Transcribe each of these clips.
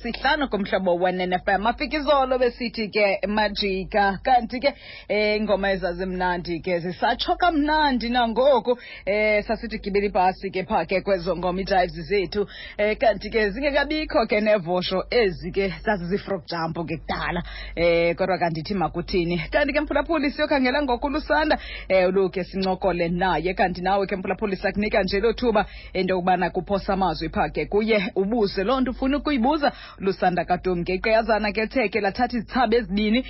Sihlanu kumhlobo wenene-fm afika izolo besithi ke majika. Kanti ke ingoma ezazimnandi ke zisatsho kamnandi nangoku. Sasithi gibela ibhasi ke phaa ke kwezo ngoma, ii-drives zethu. Kanti ke zingekabikho ke nevosho ezi ke zazizii-frog jump ke kudala. Kodwa kandithi makuthini. Kanti ke mphulaphuli, siyokhangela ngoku uLusanda, uluke sincokole naye. Kanti nawe ke mphulaphuli, sakunika nje lo thuba into yokubana kuphosa amazwi phaa ke kuye, ubuze loo nto ufuna ukuyibuza Lusanda kaDumke. Iqeyazana ke ethe ke lathatha izithsaba ezibini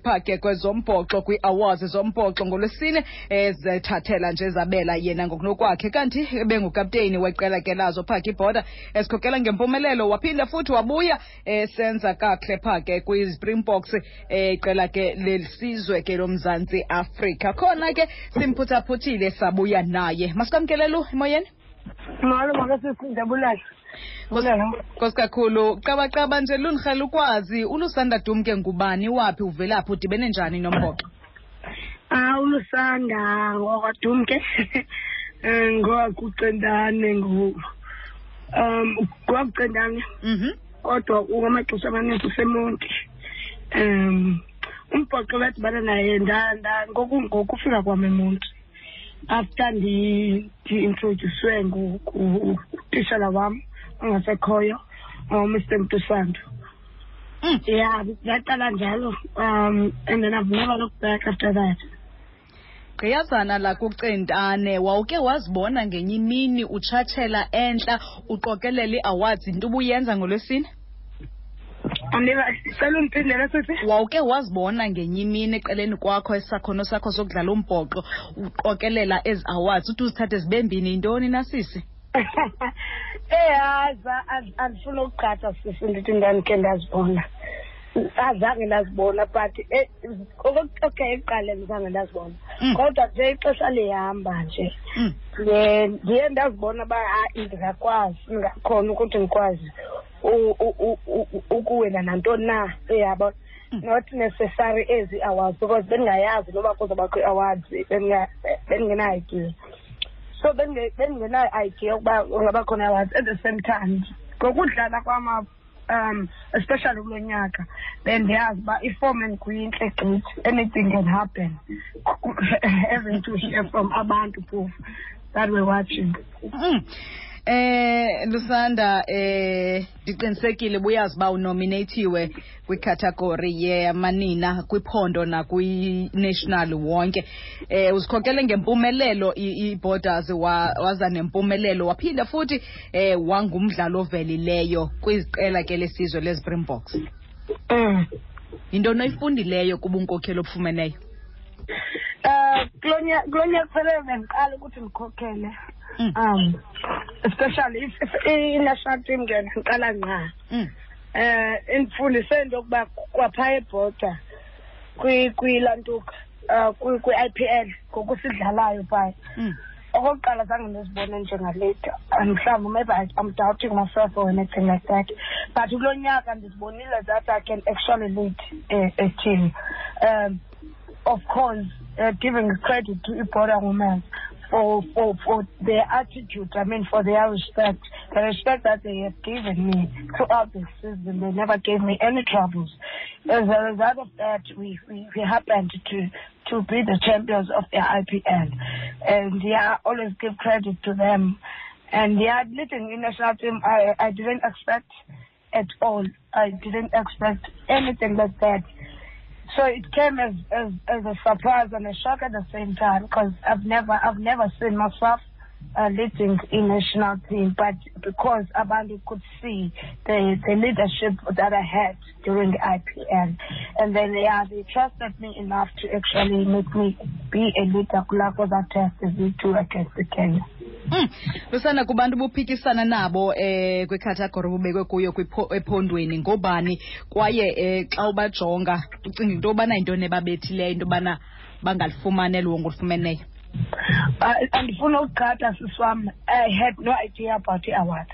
phaa ke kwezombhoxo, kwii-awards zombhoxo ngolwesine, ezethathela nje zabela yena ngokunokwakhe. Kanti ebengukapteyini weqela ke lazo phaa ke ibhoda esikhokela ngempumelelo, waphinda futhi wabuya esenza kakuhle phaa ke kwiSpringboks, iqela ke lesizwe ke loMzantsi Afrika. Khona ke simphuthaphuthile sabuya naye. Masikwamkele Lu emoyeni. Molo makasisi, ndiyabulela. Nkosi kakhulu. Qabaqaba nje lunirhela ukwazi uLusanda Dumke ngubani, waphi, uvelaphi, udibene njani nombhoxo? ULusanda ngokwaDumke, ngokwakuCentane, ngokwakuCentane. Kodwa ngamaxesha amaninzi useMonti. Umbhoxo ndadibana naye ngokufika kwam eMonti, after ndi-introducwe ngutishala wam ongasekhoyo, uMr Mntusando. Yeah, ndaqala njalo, and then I've never looked back after that. Gqiyazana lakuCentane, wawuke wazibona ngenye imini utshatshela entla uqokelela ii-awards, into ubuyenza ngolwesine? Andiva, cela undiphindele sisi. Wawuke wazibona ngenye imini eqeleni kwakho isakhono sakho sokudlala umbhoxo uqokelela ezi awards, uthi uzithathe zibe mbini, yintoni na sisi? Hayi, andifuna ukuqhatha sisi, ndithi ndandikhe ndazibona. Azange ndazibona, but okay, ekuqaleni zange ndazibona. Kodwa nje ixesha lihamba nje, ndiye ndazibona uba hayi, ndingakwazi, ndingakhona ukuthi ndikwazi ukuwina nantoni na, uyabona. Not necessary ezi awards, because bendingayazi noba kuzobakho ii-awards, bendingenayo idea. So bendingenayo idea yokuba kungaba khona awards. At the same time, ngokudlala kwam, especially kulo nyaka, bendiyazi uba iform endikuyo intle gqithi, anything can happen. Having to hear from abantu phofu that were watching. Lusanda, ndiqinisekile buyazi uba unominatiwe kwicategory yemanina kwiphondo nakwi-national wonke. Uzikhokele ngempumelelo i-Borders, waza nempumelelo, waphinda futhi wangumdlalo ovelileyo kwiziqela ke lesizwe leSpringboks. Yintoni oyifundileyo kubunkokheli obufumeneyo? Kulo nyaka kufanele bendiqala ukuthi ndikhokhele. Especially if i-national team ke ndiqala ngqa. Indifundise into yokuba kwaphaya ebhoda kwilantuka, kwi-IPL ngokusidlalayo phaya. Okokuqala zange ndizibone njengaleader, mhlawumbi maybe I'm doubting myself or anything like that, but kulo nyaka ndizibonile that I can actually lead a team. Of course, giving credit to iBorder Women for their attitude, I mean, for their respect, the respect that they have given me throughout the season. They never gave me any troubles. As a result of that, we happened to be the champions of the IPL. And yeah, I always give credit to them. And yeah, leading the national team, I didn't expect at all. I didn't expect anything like that. So it came as a surprise and a shock at the same time, because I've never seen myself leading a national team, but because abantu could see the leadership that I had during the IPL, and then they trusted me enough to actually make me be a leader kulaa test zethu against the Kenya. Lusanda, kubantu buphikisana nabo kwicategory obubekwe kuyo ephondweni, ngobani, kwaye xa ubajonga ucinga into yobana yintoni ebabethileyo into yobana bangalifumani eli wongo olufumeneyo? Andifuna ukuqhatha sisi wam, I had no idea about the awards.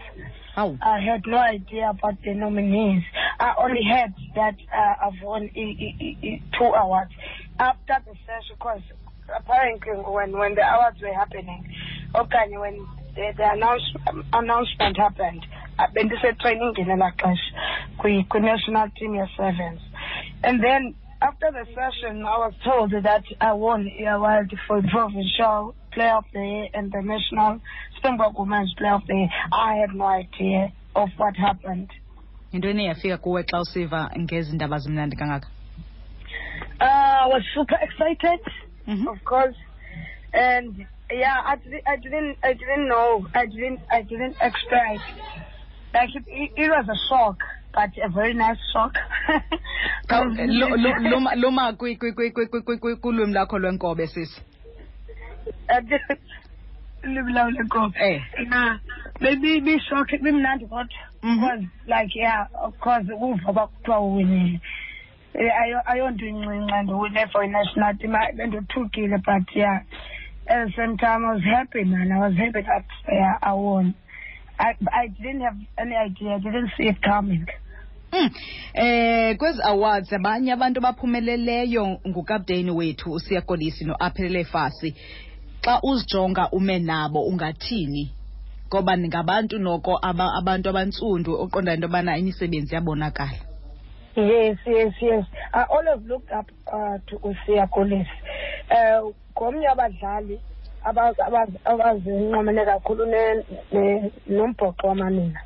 Awu. I had no idea about the nominees. I only heard that I've won two awards after the session, because apparently when the awards were happening, okay, when the announcement happened, Bendise-training ngelaa xesha kwi-national team ye-sevens. And then after the session, I was told that I won the award for provincial player of the year and the national Springbok Women's Player of the Year. I had no idea of what happened. Yintoni eyafika kuwe xa usiva ngezi ndaba zimnandi kangaka? I was super excited, of course, and yeah, I didn't know, I didn't expect. Like it was a shock, but a very nice shock. Luma kulwimi lakho lwenkobe, sisi. Ulwimi lam lwenkobe. Yeah, maybe shock, bimnandi kodwa. Because like, yeah, of course, uva uba kuthiwa uwinile. Ayonto incinci and uwine for i-national team. Bendothukile, but yeah, at the same time I was happy, man. I was happy that, yeah, I won. I didn't have any idea. I didn't see it coming. Kwezi awards abanye abantu abaphumeleleyo ngukapteni wethu uSiya Kolisi noAphelele Fassi. Xa uzijonga ume nabo ungathini? Ngoba ningabantu noko abantu abantsundu oqonda into yobana imisebenzi yabonakala. Yes. I always looked up to uSiya Kolisi. Ngomnye wabadlali abazinqomene kakhulu nombhoxo wamanina.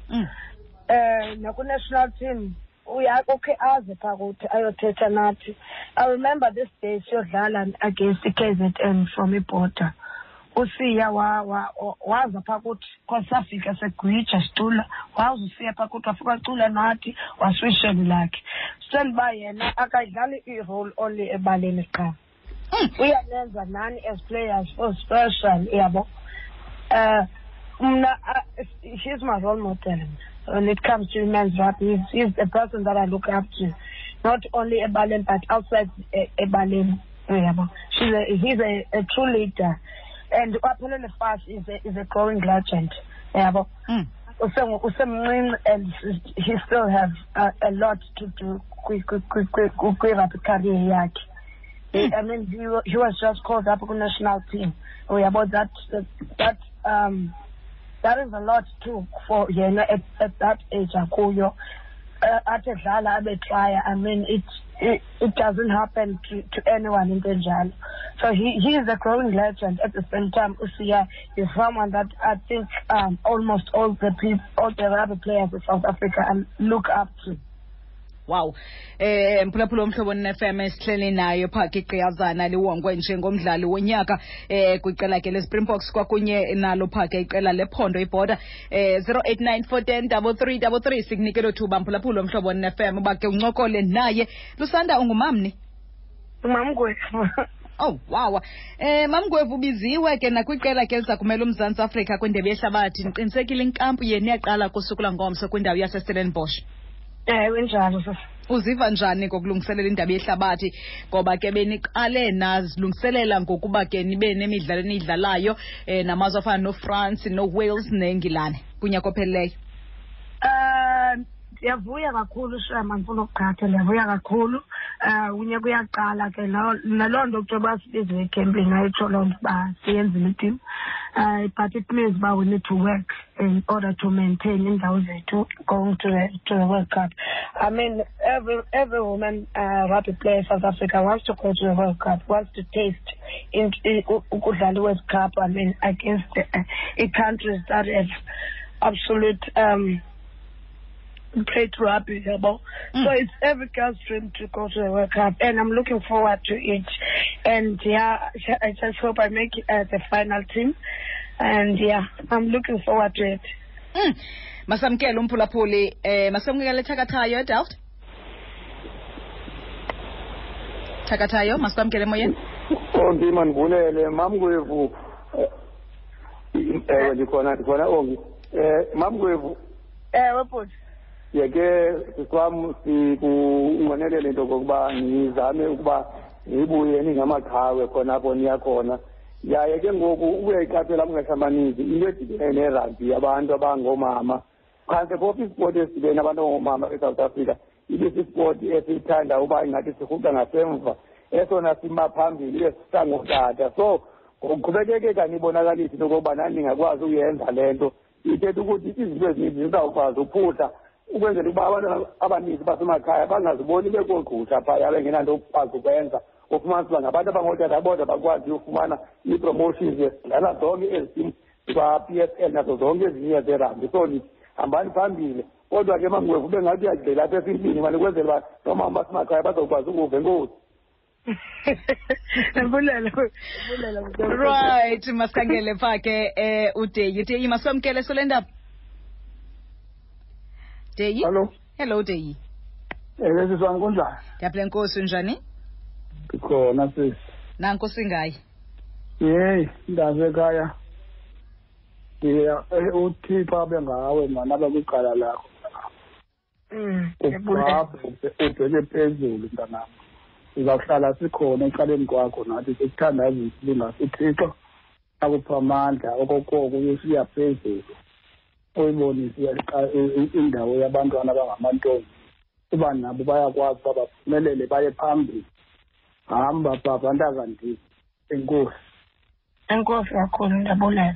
Naku-national team ukhe aze phaa kuthi ayothetha nathi. I remember this day siyodlala against i-KZN from iBorder. uSiya waza phaa kuthi, cause safika segwija sicula, waza uSiya phaa kuthi, wafika wacula nathi, waswisheni lakhe. Sendiba yena akayidlali i-role only ebaleni qha. Uyanenza nani as players for special, yabo. Mna, he's my role model when it comes to men's rugby. He's the person that I look up to, not only ebaleni but outside ebaleni. Yabo. He's a true leader, and Aphelele Fassi is a growing legend. Yabo. Usemncinci and he still have a lot to do kwi-rugby career yakhe. I mean, he was just called up ku national team. Uyabo, that is a lot too for yena at that age akuyo. Athi edlala abe try. I mean, it doesn't happen to anyone in enjalo. So he is a growing legend. At the same time, uSiya is someone that I think almost all the people, all the rugby players in South Africa look up to. Wow. Mphulaphula Umhlobo FM, esihleli nayo phaa igqiyazana liwongwe njengomdlali wonyaka kwiqela ke leSpringboks kwakunye nalo phaa ke iqela lephondo iBorder. 0894103333, sikunike lo thuba, mphulaphula Umhlobo FM, uba ke uncokole naye. Lusanda, ungumamni? Umamgwevu. Oh wow. Mamgwevu, ubiziwe ke nakwiqela ke liza kumela uMzantsi Afrika kwindebe yehlabathi. Ndiqinisekile inkampu yenu iyaqala kusuku langomso kwindawo yaseStellenbosch. Ewe, njalo sisi. Uziva njani ngokulungiselela indaba yehlabathi, ngoba ke beniqale nazilungiselela ngokuba ke nibe nemidlalo eniyidlalayo namazwe afana noFrance, noWales neNgilane kunyaka ophelileyo? Ndiyavuya kakhulu, shame, andifuna ukuqhatha, ndiyavuya kakhulu. Unyaka uyaqala ke, naloo nto kuthiwa uba sibiziwe ekhempini ayitsho loo nto uba siyenzile i-team. But it means uba we need to work in order to maintain iindawo zethu going to the World Cup. I mean, every woman rugby player in South Africa wants to go to the World Cup, wants to taste in ukudlala i-World Cup, I mean, against the countries that have absolute played rugby, yabo. So it's every girl's dream to go to the World Cup, and I'm looking forward to it. And yeah, I just hope I make the final team. And yeah, I'm looking forward to it. Masamkele umphulaphuli, masamkele Thakathayo eDelft. Thakathayo, masikwamkele emoyeni. Ongi, mandibulele, Mamgwevu. Ewe, ndikhona Ongi. Mamgwevu. Ewe, bhuti. Yeke sikwam sikunqwenelele into okokuba nizame ukuba nibuye ningamaqhawe khona apho niya khona. Yaye ke ngoku uyayiqaphela amaxesha amaninzi into edibene nerugby, abantu abangoomama phantse phofu ispoti esidibene abantu abangoomama eSouth Africa ibe sispoti esiyithanda uba ingathi sirhuqa ngasemva, esona sima phambili ibe sisangootata. So ngokuqhubekeke kanibonakalise into okokuba nani ningakwazi uyenza le nto. Ithetha ukuthi izinto ezininzi zizawukwazi uphuhla ukwenzela ukuba abantwana abaninzi basemakhaya bangaziboni bekoogqusha phaya bengenanto okukwazi ukwenza. Ufumanisa uba ngabantu abangootata bodwa bakwazi ufumana ii-promotions dlala zonke ezi timu zikwa-P S L nazo zonke ezinye zerugby. So ndithi hambani phambili, kodwa ke mangwevu ube ngathi uyagxila apha esintwini mani ukwenzela uba noomama basemakhaya bazokwazi ukuva. Enkosi. Ndibulela. Right, masikhangele pha ke uDeyi. Deyi, masiwamkele sole ndaba. Deyi? Hello. Hello Deyi. Ewe sisi wam, kunjani? Ndiyaphila, Nkosi, unjani? Ndikhona sisi. Nanko singayi. Yeyi, mntasekhaya. Ndiya uThixo abe ngawe mani, abe kwicala lakho. Ubheke phezulu mntanam. Sizawuhlala sikhona ecaleni kwakho nathi sikuthandazisa ubungasi uThixo akupha amandla okokoko uyosiya phezulu. Uyibonise indawo yabantwana abangamantombi uba nabo bayakwazi uba baphumelele baye phambili. Hamba baba ntakandini. Enkosi. Enkosi kakhulu, ndiyabulela.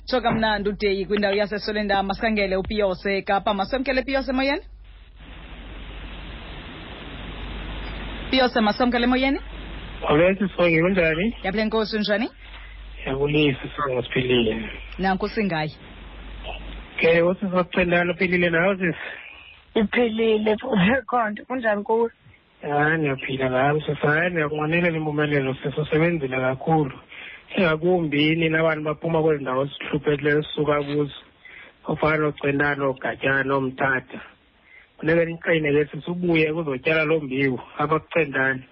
Tsho kamnandi uDeyi kwindawo yaseSolendama. Masikhangele uPiyose eKapa. Masamkele Piyose emoyeni. Piyose, masamkele emoyeni. Molweni Sisonke, kunjani? Ndiyaphila, Nkosi, unjani? Ndiyabulisa Sisonke, siphilile. Nanku singayi. Ke usisi wakucendana uphilile nawe sisi? Iphilile khonto, kunjani kuwe? Hayi, ndiyaphila nam sisi. Hayi, ndiyakunqwenelela impumelelo sisi, usebenzile kakhulu. Ingakumbi nina bantu baphuma kwezi ndawo sihluphekileyo sisuka kuzo, ofana noCentane, ooGatyana, nooMthatha. Funeka niqine ke sisi, ubuye kuzotyala loo mbewu apha kuCentane.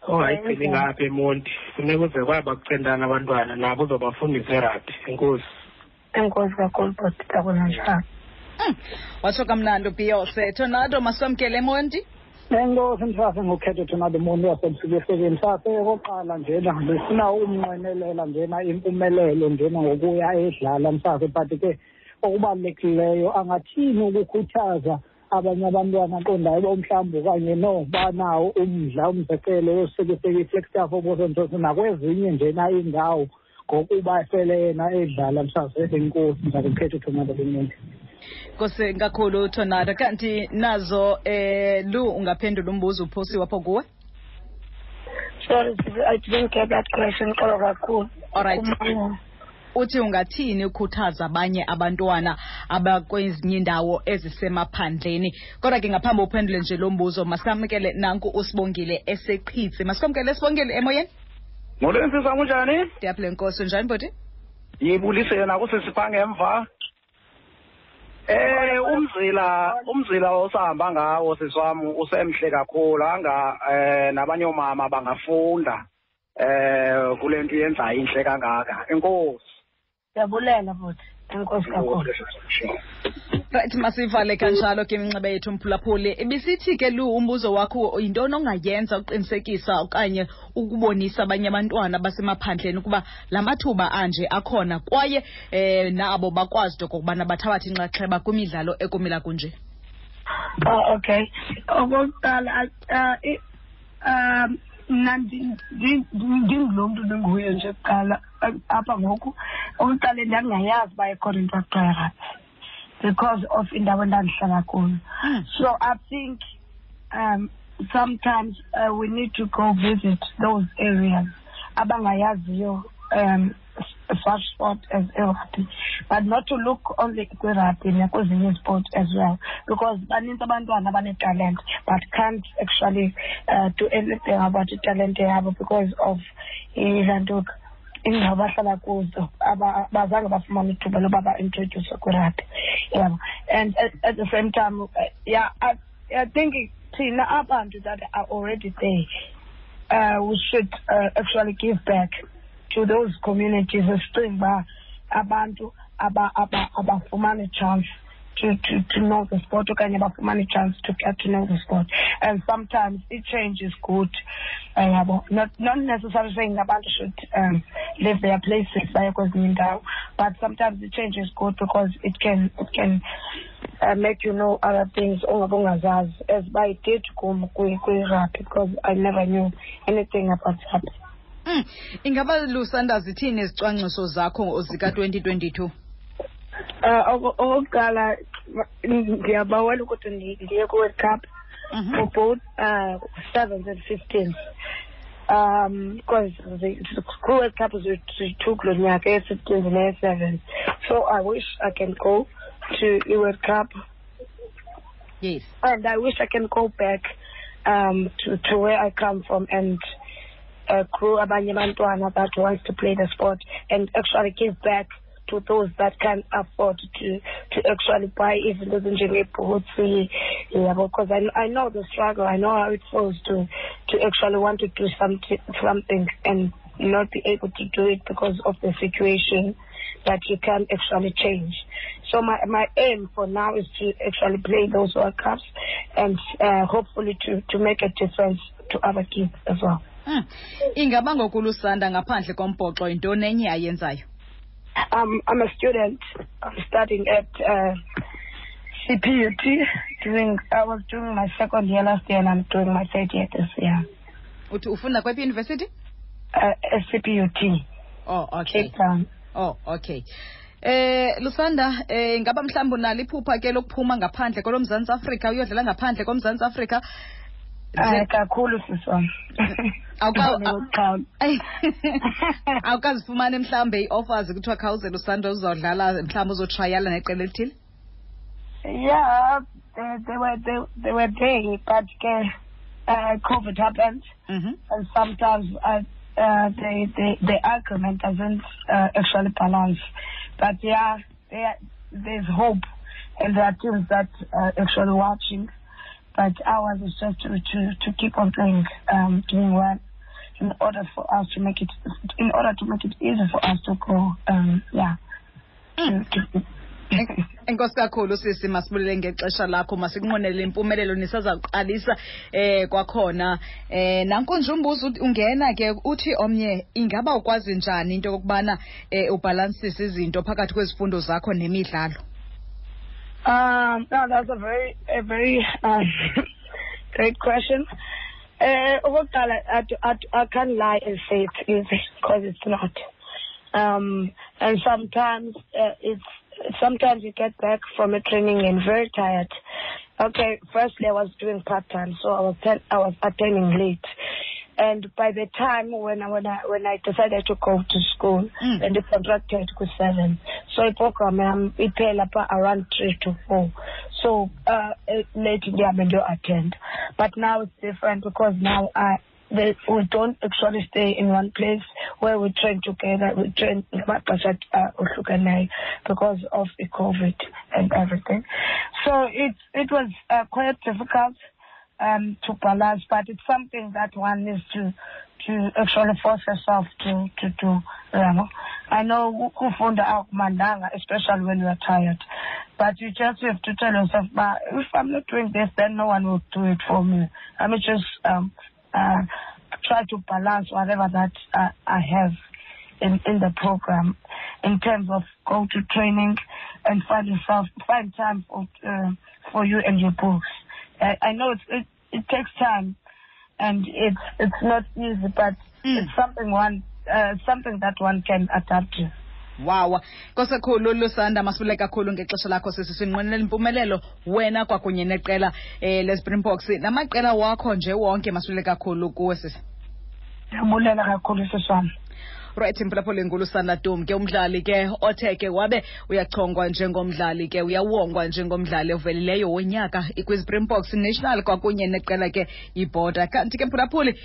Ongayigcini ngapha eMonti, funeka uze kwaba kuCentane abantwana nabo uzobafundisa erabhi. Enkosi. Enkosi kakhulu bhuti, ndabona njalo. Watsho kamnandi uBiyose. Tornado, masiwamkele eMonti. Enkosi msase ngokhetho Tornado Monti wasemsukehlekeni. Msase okokuqala njena ndifuna umnqwenelela njena impumelelo njena ngokuya edlala msase, but ke okubalulekileyo angathini ukukhuthaza abanye abantwana aqondayo uba mhlawumbi okanye no banawo umdla, umzekelo yosekiseki iFlagstaff oBosontoso nakwezinye njena iindawo ngokuba sele yena edlala msase. Enkosi msase ngokhetho Tornado Monti. Nkosi kakhulu Tornado. Kanti nazo Lu, ungaphendula umbuzo uphosiwe apho kuwe? Sorry, I didn't get that question. Xolo kakhulu. All right. Uthi ungathini ukhuthaza abanye abantwana abakwezinye indawo ezisemaphandleni? Kodwa ke ngaphambi uphendule nje lo mbuzo, masikamkele nanku uSibongile eseQhitsi. Masikamkele Sibongile emoyeni. Molweni sisi, kunjani? Ndiyaphila Nkosi, unjani bhuti? Yibulise yena kusisi phaa ngemva. Umzila osahamba ngawo sisi wam usemhle kakhulu, anga nabanye oomama bangafunda kule nto yenzayo intle kangaka. Enkosi. Ndiyabulela bhuti, enkosi kakhulu. Right, masivale kanjalo ke iminxeba yethu mphulaphuli. Ibisithi ke Lu, umbuzo wakho yintoni ongayenza uqinisekisa okanye ukubonisa abanye abantwana basemaphandleni ukuba la mathuba anje akhona kwaye nabo bakwazi into okokubana bathabathe inxaxheba kwimidlalo ekumila kunje? Oh, okay. Okokuqala, mna ndingulo mntu ndinguye nje kuqala apha ngoku. Okokuqala ndandingayazi uba ikhona into ekuthiwa yirugby because of indawo endandihlala kuyo. So I think sometimes we need to go visit those areas abangayaziyo such sport as rugby, but not to look only kwi-rugby nakwezinye sport as well, because baninzi abantwana abanetalent but can't actually do anything about italente yabo because of ilantuka indawo abahlala kuzo, abazange bafumane ithuba loba ba-introduce kwi-rugby. Yabo. And at the same time, yeah, I think thina abantu that are already there, we should actually give back to those communities esicinga uba abantu abafumani chance to know the sport okanye bafumane chance to get to know the sport. And sometimes it change is good. Yabo. Not necessarily saying abantu should leave their places baye kwezinye iindawo, but sometimes the change is good because it can make you know other things ongabe ungazazi, as I did kum kwi-rugby, because I never knew anything about rugby. Ingaba Lusanda zithini izicwangciso zakho zika-2022? Okokuqala ndiyabawela ukuthi ndiye kwi-World Cup for both 7s and 15s. Because the World Cup is two kulo nyaka, ye-15s neye-7s. So I wish I can go to the World Cup. Yes. And I wish I can go back to where I come from and crew abanye abantwana that wants to play the sport and actually give back to those that can't afford to actually buy even those njenge-boots, yeah, because I know the struggle. I know how it feels to actually want to do something and not be able to do it because of the situation that you can't actually change. So my aim for now is to actually play those World Cups and hopefully to make a difference to other kids as well. Ingaba ngoku Lusanda ngaphandle kombhoxo yintoni enye ayenzayo? I'm a student. I'm studying at CPUT. I was doing my second year last year and I'm doing my third year this year. Uthi ufunda kwephi university? CPUT. Oh, okay. Cape Town. Oh, okay. Lusanda, ngaba mhlawumbi unalo iphupha ke lokuphuma ngaphandle koloMzantsi Afrika uyodlala ngaphandle koMzantsi Afrika? Kakhulu sisi wam. Awukazifumani mhlawumbe ii-offers kuthiwa khawuze Lusanda uzawudlala mhlawumbi uzotrayala neqela elithile? Yeah, they were there, but COVID happened, and sometimes the argument doesn't actually balance. But yeah, there's hope, and there are teams that are actually watching. But ours is just to keep on playing, doing well, in order for us to make it, in order to make it easy for us to go. Yeah. Enkosi kakhulu sisi, masibulele ngexesha lakho, masikunqwenele impumelelo nisazawuqalisa kwakhona. Nanku nje umbuzo ungena ke uthi omnye, ingaba ukwazi njani into yokubana ubhalansise izinto phakathi kwezifundo zakho nemidlalo? No, that's a very great question. Okokuqala, I can't lie and say it's easy, because it's not. And sometimes sometimes you get back from a training and very tired. Okay, firstly I was doing part time, so I was attending late. And by the time when I decided to go to school, and the contracted to 7, so the program iphela around 3 to 4. So late in the attend. But now it's different, because now we don't actually stay in one place where we train together. We train because of the COVID and everything. So it was quite difficult to balance, but it's something that one needs to actually force yourself to do. I know kufunda akumandanga, especially when you are tired, but you just have to tell yourself, but if I'm not doing this, then no one will do it for me. I mean, just try to balance whatever that I have in the program, in terms of go to training and find time for you and your books. I know it takes time, and it's not easy, but it's something that one can adapt to. Wow. Nkosi kakhulu Lusanda, masibulele kakhulu ngexesha lakho sisi, sinqwenela impumelelo wena kwakunye neqela leSpringboks namaqela wakho nje wonke, masibulele kakhulu kuwe sisi. Ndiyabulela kakhulu sisi wam. Right, mphulaphuli, nguLusanda Dum ke, umdlali ke othe ke wabe uyachongwa njengomdlali ke uyawongwa njengomdlali ovelileyo wonyaka kwiSpringboks National kwakunye neqela ke iBorder. Kanti ke mphulaphuli,